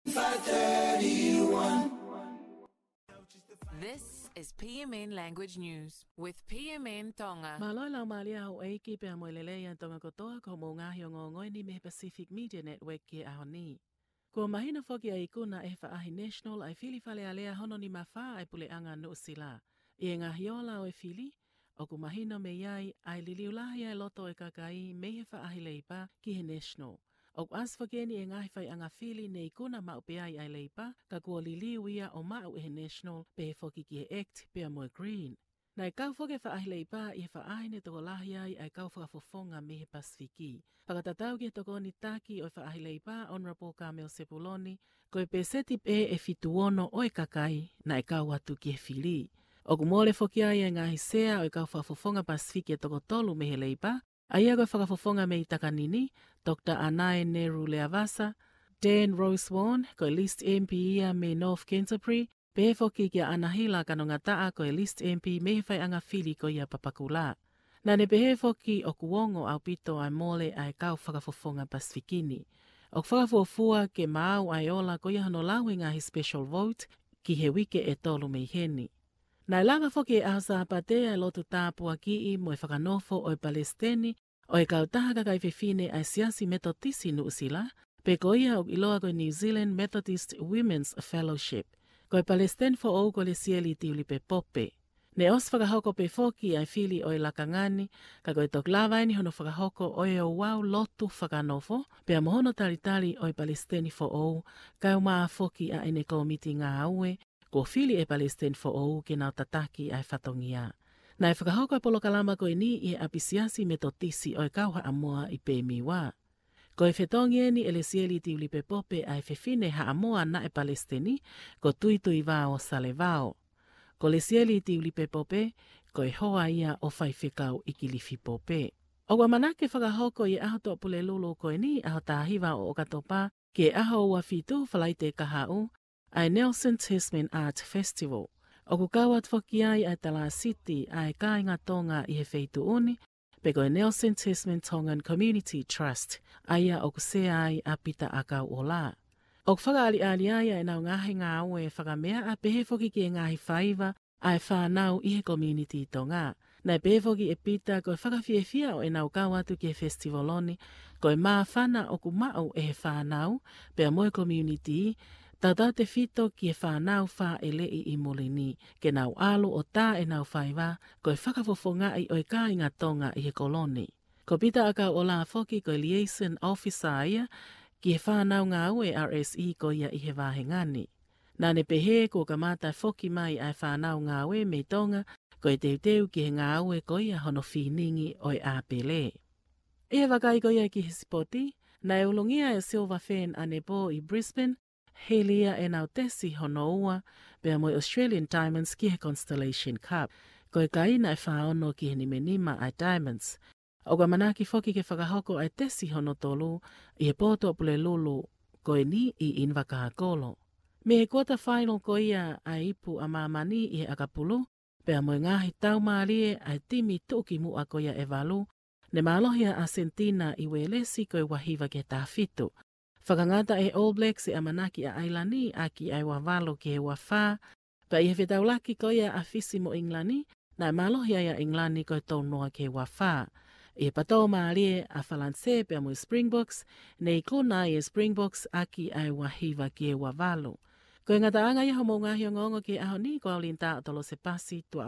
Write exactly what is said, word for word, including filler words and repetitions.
five thirty-one. This is P M N Language News with P M N Tonga. Mālō e laumālie ʻa houʻeiki pea mo e lelei ʻa Tonga kotoa, ko hoʻomou ngaahi ongoongo eni mei he Pacific Media Network ki he ʻaho ni. Kuo mahino foki ʻa e ikuna ʻe he faʻahi National ʻa e fili Fale Alea hono nima fā ʻa e Puleʻanga Nuʻusila. ʻI he ngaahi ola ʻo e fili, ʻoku mahino mei ai ʻa e liliu lahi ʻa e loto ʻo e kakai mei he faʻahi Leipa ki he National. ʻOku ʻasi foki eni ʻi he ngaahi faiʻanga fili ne ikuna maʻu pē ai ʻa e Leipa, ka kuo liliu ia ʻo maʻu ʻe he National, pehē foki ki he ACT pea mo e Green. Naʻe kau foki e faʻahi Leipa ʻi he faʻahi ne tokolahi ai ʻa e kau fakafofonga mei he Pasifiki. Fakatatau ki he tokoni taki ʻo e faʻahi Leipa, Honourable Carmel Sepuloni, ko e pēseti pē ʻe fitu ono ʻo e kakai naʻe kau atu ki he fili. ʻOku mole foki ai e ngaahi sea ʻo e kau fakafofonga Pasifiki ʻe toko tolu mei he Leipa, ʻa ia ko e fakafofonga mei Takanini, Doctor Anae Neru Leavasa, Dan Rose Warne, ko e List M P ia mei North Canterbury, pehē foki kia Anahila Kanongataʻa, ko e List M P mei he faiʻanga fili ko ia Papakura. Naʻa ne pehē foki ʻoku ongo ʻaupito ʻa e mole ʻa e kau fakafofonga Pasifiki ni. ʻOku fakafuofua ke maau ʻa e ola ko ia hono lau e ngaahi special vote ki he uike ʻe tolu mei heni. Naʻe lava foki he ʻaho Sāpate ʻa e lotu tāpuakiʻi mo e fakanofo ʻo e Palesiteni ʻo e kautaha kakai fefine ʻa e Siasi Metotisi Nuʻusila, pe ko ia ʻoku ʻiloa ko e New Zealand Methodist Women's Fellowship. Ko e Palesiteni foʻou ko Lesieli Tiulipe Pope. Ne ʻosi fakahoko pē foki ʻa e fili ʻo e lakanga ni, ka ko e toki lava eni hono fakahoko ʻo e ouau lotu fakanofo, pea mo hono talitali ʻo e Palesiteni foʻou, kae ʻumaʻā foki ʻa ʻene kōmiti ngāue, kuo fili ʻe he Palesiteni foʻou ke nau tataki ʻa e fatongia. Naʻe fakahoko e polokalama ko eni ʻi he ʻapisiasi Metotisi ʻo e Kau Haʻamoa ʻi Pemiwa. Ko e fetongi eni ʻe Lesieli Tiulipe Pope ʻa e fefine Haʻamoa naʻe Palesiteni, ko Tuituivao Salevao. Ko Lesieli Tiulipe Pope, ko e hoa ia ʻo Faifekau ʻIkilifi Pope. ʻOku ʻamanaki fakahoko ʻi he ʻaho Tuʻapulelulu ko eni, ʻaho taha hiva ʻo ʻOkatopa, ki he ʻaho ua fitu Falaite kahaʻu, ʻa e Nelson Tasman Art Festival. ʻOku kau atu foki ai ʻa e Talāsiti ʻa e Kāinga Tonga ʻi he feituʻu ni, pe ko e Nelson Tasman Tongan Community Trust, ʻa ia ʻoku sea ai ʻa Pita ʻAkauʻola. ʻOku fakaʻaliʻali ai ʻa ʻenau ngaahi ngāue fakameaʻa pehē foki ki he ngaahi faiva ʻa e fānau ʻi he community Tonga. Naʻe pehē foki ʻe Pita ko e fakafiefia ʻo ʻenau kau atu ki he festival ni, ko e māfana ʻoku maʻu ʻe he fānau, pea mo e community, tautautefito ki he fānau fāʻeleʻi ʻi muli ni, ke nau ʻalu ʻo tā ʻenau faiva, ko e fakafofongaʻi ʻo e kāinga Tonga ʻi he kolo ni. Ko Pita ʻAkauʻola foki ko e liaison officer ia ki he fānau ngāue R S E ko ia ʻi he vāhenga ni. Naʻa ne pehē kuo kamata foki mai ʻa e fānau ngāue mei Tonga, ko e teuteu ki he ngāue ko ia hono finingi ʻo e ʻāpele. ʻI he vakai ko ia ki he sipoti, naʻe ulungia e Silver Fern ʻanepō ʻi Brisbane, hili ia ʻenau tesi hono ua, pea mo e Australian Diamonds ki he Constellation Cup. Ko e kai naʻe fā ono ki he nima nima ʻa e Diamonds. ʻOku ʻamanaki foki ke fakahoko ʻa e tesi hono tolu ʻi he pō Tuʻapulelulu ko eni ʻi ʻInivakākolo. Mei he quarter final ko ia ʻa e ipu ʻa māmani ʻi he ʻakapulu, pea mo e ngaahi taumālie ʻa e timi tuʻukimuʻa ko ia ʻe valu, ne mālohi ʻa ʻAsentina ʻi Uēlesi ko e ua hiva ki he taha fitu. Fakangata ʻe he All Blacks e ʻamanaki ʻa ʻAilani ʻaki ʻa e ua valu ki he ua fā, pea ʻi he fetaulaki ko ia ʻa Fisi mo ʻIngilani, naʻe mālohi ai ʻa ʻIngilani ko e tolu noa ki he ua fā. ʻI he patō mālie ʻa Falanisē pea mo e Springboks, ne ikuna ai e Springboks ʻaki ʻa e ua hiva ki he ua valu. Ko e ngataʻanga ia hoʻomou ngaahi ongoongo ki he ʻaho ni, ko au Linda ʻOtolose Pasi, tuʻa